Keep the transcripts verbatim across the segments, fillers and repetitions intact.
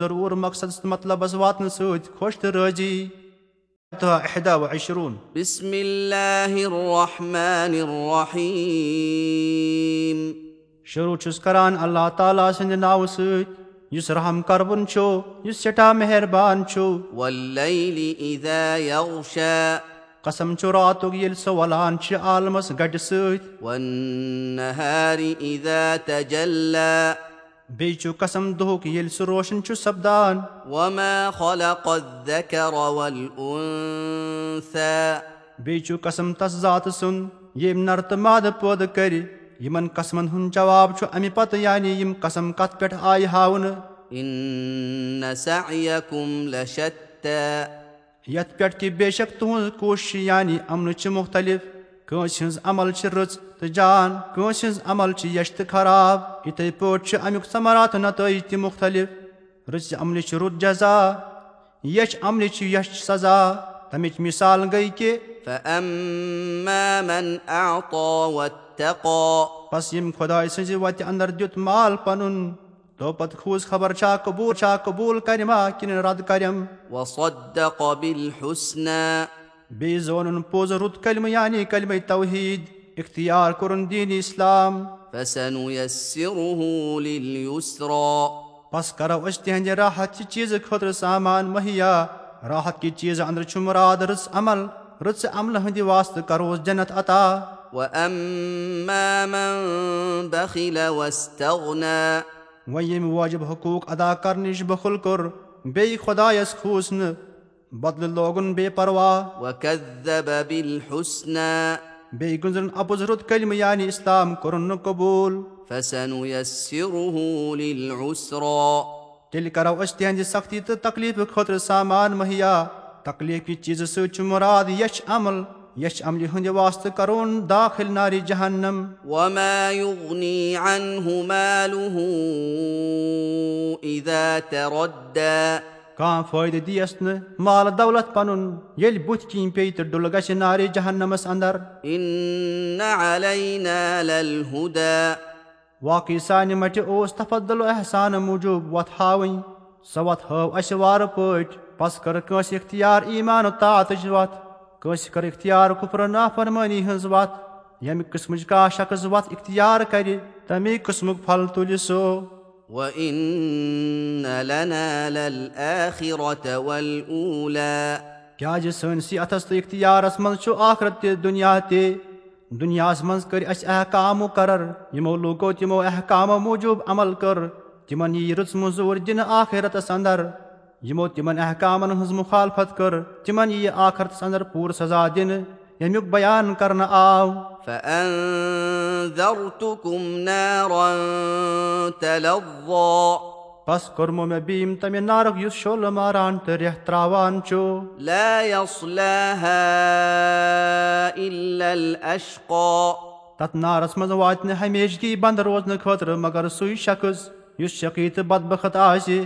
ضروٗر مقصدس تہٕ مطلبس واتنہٕ سۭتۍ خۄش تہٕ رٲضی۔ تہٕ احدا و عشرون۔ بسم اللہ الرحمن الرحیم۔ شروع چھُس کران اللہ تعالیٰ سٕنٛدِ ناوٕ سۭتۍ، یُس رحم کرون چھُ، یُس سٮ۪ٹھاہ مہربان چھُ۔ واللیل اذا یغشی۔ قسم چھُ راتُک، ییٚلہِ سُہ وَلان چھِ عالمس گٹہِ سۭتۍ۔ والنہار اذا تجلی۔ بیٚیہِ چھُ قسم دۄہُک، ییٚلہِ سُہ روشن چھُ سپدان۔ وما خلق الذکر والانثی۔ بیٚیہِ چھُ قسم تس ذاتہٕ سُنٛد، ییٚمۍ نر تہٕ مادٕ پٲدٕ کرِ۔ یِمن قسمن ہُنٛد جواب چھُ امہِ پتہٕ، یعنی یِم قسم کتھ پٮ۪ٹھ آیہِ ہاونہٕ۔ ان سعیکم لشتی۔ یتھ پٮ۪ٹھ کہِ بے شک تُہٕنٛز کوٗشش یعنی عملہٕ چھِ مُختلف۔ کٲنٛسہِ ہٕنٛز عمل چھِ رٕژ تہٕ جان، کٲنٛسہِ ہٕنٛز عمل چھِ یچھ تہٕ خراب۔ یِتھے پٲٹھۍ چھِ امیُک ثمرات و نتائج تہِ مُختلف۔ رٕژِ عملہِ چھِ رُت جزا، یچھ عملہِ چھِ یچھ سزا۔ تمِچ مثال گٔے کہِ فَأَمَّا مَنْ أَعْطَى وَاتَّقَى۔ پس ییٚمۍ خۄداے سٕنٛزِ وتہِ اندر دیُت مال پنُن، تو پتہٕ کھوٗژ خبر چھا قبول، چھا قبول کرِ ما کِنہٕ رد کرٮ۪م۔ وَصَدَّقَ بِالْحُسْنَى۔ بیٚیہِ زونُن پوٚز رُت کلمہٕ یعنی کلمہ توحید، اختیار کوٚرُن دین اسلام۔ فَسَنُيَسِّرُهُ لِلْيُسْرَى۔ پس کرو أسۍ تِہنٛدِ راحت چہِ چیٖزٕ خٲطرٕ سامان مہیا۔ راحت کہِ چیٖزٕ اندرٕ چھُ مراد رٕژ عمل، رٕژِ عملہِ ہٕنٛدِ واسطہٕ کروس جنت عطا۔ وَأَمَّا مَنْ بَخِلَ وَاسْتَغْنَى۔ وۄنۍ ییٚمۍ واجب حقوق ادا کرنٕچ بخل کوٚر، بیٚیہِ خۄدایس کھوٗژ نہٕ، بدلہٕ لوگُن بے پرواہ۔ وَكَذَّبَ بِالْحُسْنَى۔ بیٚیہِ گُنٛزرُن اپُز رُت کلمہٕ یعنی اسلام کوٚرُن نہٕ قبول۔ فَسَنُيَسِّرُهُ لِلْعُسْرَى۔ تیٚلہِ کرو أسۍ تِہنٛدِ سختی تہٕ تکلیفہٕ خٲطرٕ سامان مہیا۔ تکلیف کہِ چیٖزٕ سۭتۍ چھُ مراد یچھ عمل، یچھ عملہِ ہٕنٛدِ واسطہٕ کرون داخل نارِ جہنم۔ وَمَا يُغْنِي عَنْهُ مَالُهُ إِذَا تَرَدَّى۔ کانٛہہ فٲیدٕ دِیَس نہٕ مال دولت پنُن، ییٚلہِ بُتھِ کِنۍ پیٚیہِ تہٕ ڈُلہٕ گژھِ نارِ جہنمس اندر۔ إِنَّ عَلَيْنَا لَلْهُدَى۔ واقعی سانہِ مٹہِ اوس تفضل و احسان موٗجوٗب وتھ ہاوٕنۍ۔ سۄ وتھ ہٲو اسہِ وارٕ پٲٹھۍ۔ پس کٔر کٲنٛسہِ اختیار ایمان و طاعتٕچ وتھ، کٲنٛسہِ کٔر اختیار کفر و نافرمٲنی ہٕنٛز وتھ۔ ییٚمہِ قٕسمٕچ کانٛہہ شخص وتھ اختیار کرِ، تمی قٕسمُک پھل تُلہِ سُہ۔ وَإِنَّ لَنَا لَلْآخِرَةَ وَالْأُولَى۔ کیازِ سٲنِسٕے اتھس تہٕ اختیارس منٛز چھُ آخرت تہِ دُنیا تہِ۔ دُنیاہس منٛز کٔرۍ اسہِ احکام مقرر، یِمو لوٗکو تِمو احکامو موٗجوٗب عمل کٔر، تِمن ییہِ رٕژ مٔزوٗرۍ دِنہٕ آخرتس اندر۔ یِمو تِمن احکامن ہٕنٛز مخالفت کٔر، تِمن ییہِ آخرتس اندر پوٗرٕ سزا دِنہٕ، ییٚمیُک بیان کرنہٕ آو۔ فَأَنذَرْتُكُمْ نَارًا تَلَظَّى۔ پس کوٚرمو مےٚ بیٖم تمہِ نارُک یُس شعلہٕ ماران تہٕ ریٚہہ تراوان چھُ۔ لَا يَصْلَاهَا إِلَّا الْأَشْقَى۔ تتھ نارس منٛز واتہِ نہٕ ہمیشگی بند روزنہٕ خٲطرٕ مگر سُے شخص یُس شقی تہٕ بدبخت آسہِ۔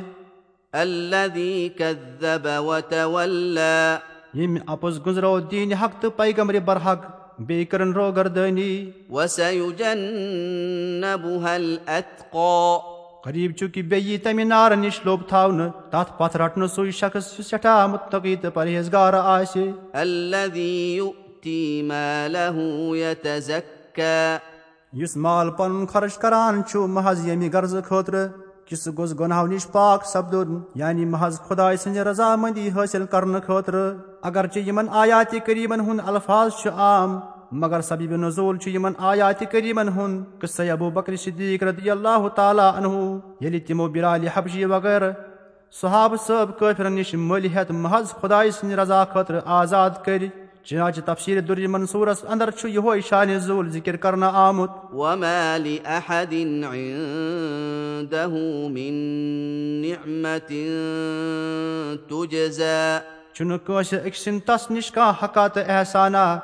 الذي كذب وتولى۔ ییٚمۍ اپُز گُنٛزرو دیٖنِ حق تہٕ پیغمبرِ برحق، بیٚیہِ کٔرٕن روگردٲنی۔ وسيجنبها الأتقى۔ قریب چھُ کہِ بیٚیہِ یی تمہِ نارٕ نِش لوٚب تھاونہٕ، تتھ پتھ رٹنہٕ سُے شخص یُس سٮ۪ٹھاہ متقی تہٕ پرہیزگار آسہِ۔ الذي يؤتي ماله يتزكى۔ یُس مال پنُن خرٕچ کران چھُ محض ییٚمہِ غرضہٕ خٲطرٕ کہِ سُہ گوٚژھ گۄناہو نِش پاک سپدُن، یعنی محض خدایہِ سٕنٛزِ رضامندی حٲصِل کرنہٕ خٲطرٕ۔ اگرچہِ یِمن آیاتِ کریمن ہُنٛد الفاظ چھُ عام، مگر سبیب نزول چھُ یِمن آیاتِ کریمن ہُنٛد قصہ ابو بکر صدیق رضی اللہ تعالیٰ عنہ، ییٚلہِ تِمو بلال حبشی وغٲرٕ صحابہٕ صٲب کٲفرن نِش مٔلۍ ہٮ۪تھ محض خدایہِ سٕنٛدِ رضا خٲطرٕ آزاد کٔرۍ۔ چنانچہ تفسیر در منصورس اندر چھُ یِہوے شانِ نزول ذکر کرنہٕ آمُت۔ وما لأحد عنده من نعمة تجزى۔ چھُنہٕ کٲنٛسہِ أکۍ سٕنٛد تس نِش کانٛہہ حقا تہٕ احسانا،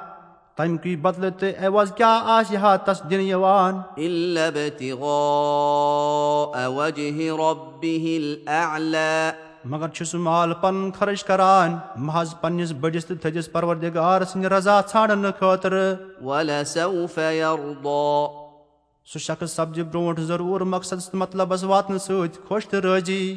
تمہِ کُے بدلہٕ تہٕ عوض کیٛاہ آسہِ ہا تس دِنہٕ یِوان۔ إلا ابتغاء وجه ربه الأعلى۔ مگر چھُ سُہ مال پنُن خرٕچ کران محض پننِس بٔڑِس تہٕ تھٔدِس پروردگار سٕنٛدِ رضا ژھانڈنہٕ خٲطرٕ۔ ولسوف يرضى۔ سُہ شخص سپدِ برونٛٹھ ضروٗر مقصدس تہٕ مطلبس واتنہٕ سۭتۍ خۄش تہٕ رٲضی۔